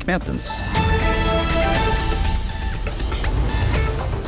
Mertens.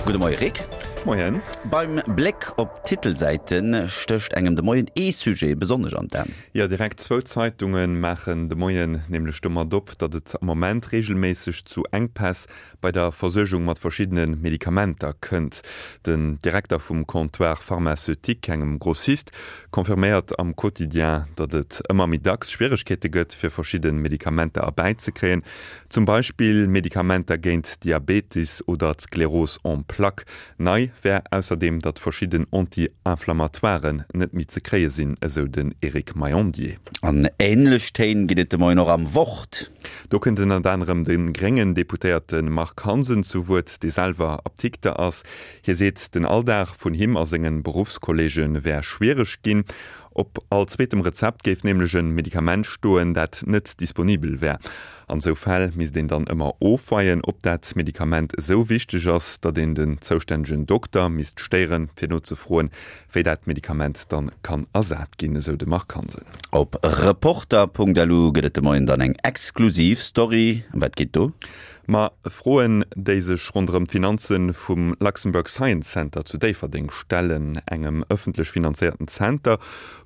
Gudde Moie Rick. Moien. Beim Bléck op d'Titelsäite stécht engem de Moien ee Sujet besonnesch an d'An. Jo, direkt zwou Zeitunge maachen de Moien nämlech domat op, datt et am Moment reegelméisseg zu Enkpäss bei der Versuergung mat verschiddene Medikamenter kënnt. Den Direkter vum Comptoir pharmaceutique, engem Grossist, confirméiert am Quotidien, datt et ëmmer méi dacks Schwieregkeete gëtt, fir verschidde Medikamenter erbäizekréien. Zum Beispill Medikamenter géint Diabetes oder d'Sklerose en plaques. Nei wär ausserdeem, datt verschidden Anti-Inflammatoiren net méi ze kréie sinn, esou den Eric Maillandier. An änlech Téin ginn et de Moien och am Wort. Do kënnt ënnert anerem de gréngen Deputéierte Marc Hansen zu Wuert, dee selwer Apdikter ass. Hie seet, den Alldag vun him a senge Beruffskolleege wär schwiereg ginn. Op all zweetem Rezept géif nämlech e Medikament stoen, dat net disponibel wär. An esou Fäll misst een dann ëmmer ofweien, ob dat Medikament esou wichteg ass, datt een den zoustännegen Dokter misst stéieren, fir nozefroen, wéi dat Medikament dann kann ersat ginn, esou de Marc Hansen. Op Reporter.lu gëtt et de Moien dann eng exklusiv Story. Ëm wat geet do? Ma Froen, déi sech ronderëm d'Finanze vum Luxembourg Science Center zu Déifferdeng stellen, engem ëffentlech finanzéierten Zenter,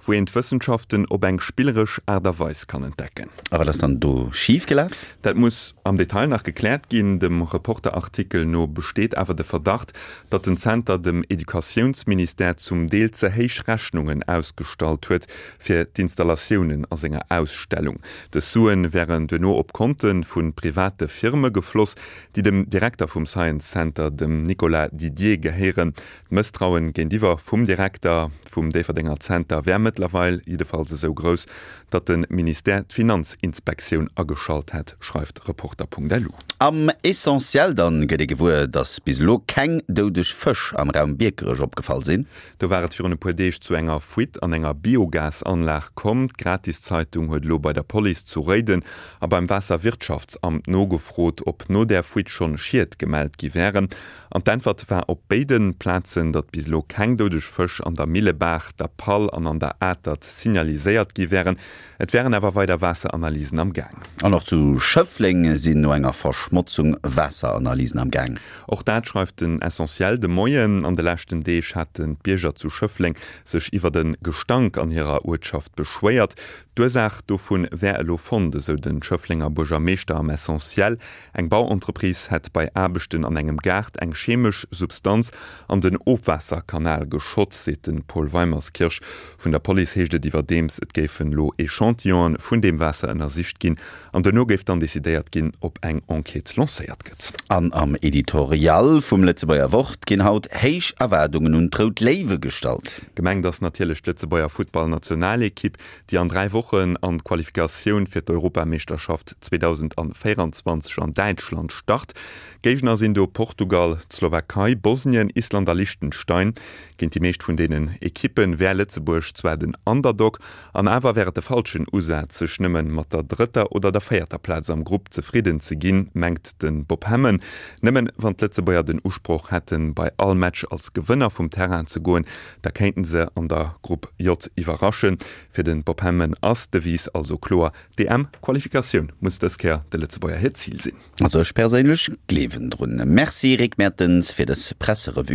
wou een d'Wëssenschaften op eng spilleresch Aart a Weis kann entdecken. A wat ass dann do schif gelaf? Dat muss am Detail nach gekläert ginn. Dem Reporter-Artikel no besteet awer de Verdacht, datt den Zenter dem Educatiounsministère zum Deel ze héich Rechnungen ausgestallt huet fir d'Installatiounen a senger Ausstellung. Dës Suen wären duerno op Konte vu private Firme gefloss, déi dem Direkter vum Science Center, dem Nicolas Didier, gehéieren. D'Mësstrauen géintiwwer vum Direkter vum Déifferdenger Zenter wär mëttlerweil jiddefalls esou grouss, datt de Ministère d'Finanzinspektioun ageschalt hätt, schreift Reporter.lu. Am Essentiel dann gëtt ee gewuer, datt bis elo keng doudeg Fësch am Raum Biekerech opgefall sinn. Do war et virun e puer Deeg zu enger Fuite an enger Biogasanlag komm. D'Gratiszeitung huet elo bei der Police zu Réiden a beim Waasserwirtschaftsamt nogefrot, ob no där Fuite schonn Schied gemellt gi wären. An d'Äntwert war op béide Plazen, datt bis elo keng doudeg Fësch an der Millebaach, der Pall an an der Atert signaliséiert gi wären. Et wären awer weider Waasseranalysen am Gaang. An och zu Schëffleng sinn no enger Verschmotzung Waasseranalysen am Gaang. Och dat schreift den Essentiel de Moien. An de leschten Deeg haten d'Bierger zu Schëffleng sech iwwert e Gestank an hirer Uertschaft beschwéiert. D'Ursaach dovun wär elo fonnt, esou de Schëfflenger Buergermeeschter am Essentiel. Eng Bauentreprise hätt bei Aarbechten an engem Gaart eng chemesch Substanz an den Ofwaasserkanal geschott, seet de Paul Weimerskirch. Vun der Police heescht et iwwerdeems, et géifen elo Echantillonen vun deem Waasser ënnersicht ginn an duerno géif dann decidéiert ginn, ob eng Enquête lancéiert gëtt. An am Editorial vum Lëtzebuerger Wort ginn haut héich Erwaardungen un d'Rout Léiwe gestallt. Gemengt ass natierlech d'Lëtzebuerger Futtballnationalekipp, déi an 3 Wochen an d'Qualifikatioun fir d'Europameeschterschaft 2024 an Däitschland start. Géigner sinn do Portugal, d'Slowakei, Bosnien, Island a Liechtenstein. Géint déi meescht vun deenen Ekippe wär Lëtzebuerg zwar den Underdog, an awer wär et de falschen Usaz, sech nëmme mat der drëtter oder der véierter Plaz am Grupp zefridden ze ginn, mengt de Bob Hemmen. Nëmmen wann d'Lëtzebuerger den Usproch hätten, bei all Match als Gewënner vum Terrain ze goen, Da kéinten se an der Grupp J iwwerraschen. Fir de Bob Hemmen ass d'Devise also kloer, D'EM-Qualifikatioun muss dës Kéier de Lëtzebuerger hiert Zil sinn. Also ech perséinlech gleewen drun. Merci Rick Mertens fir dës Presserevue.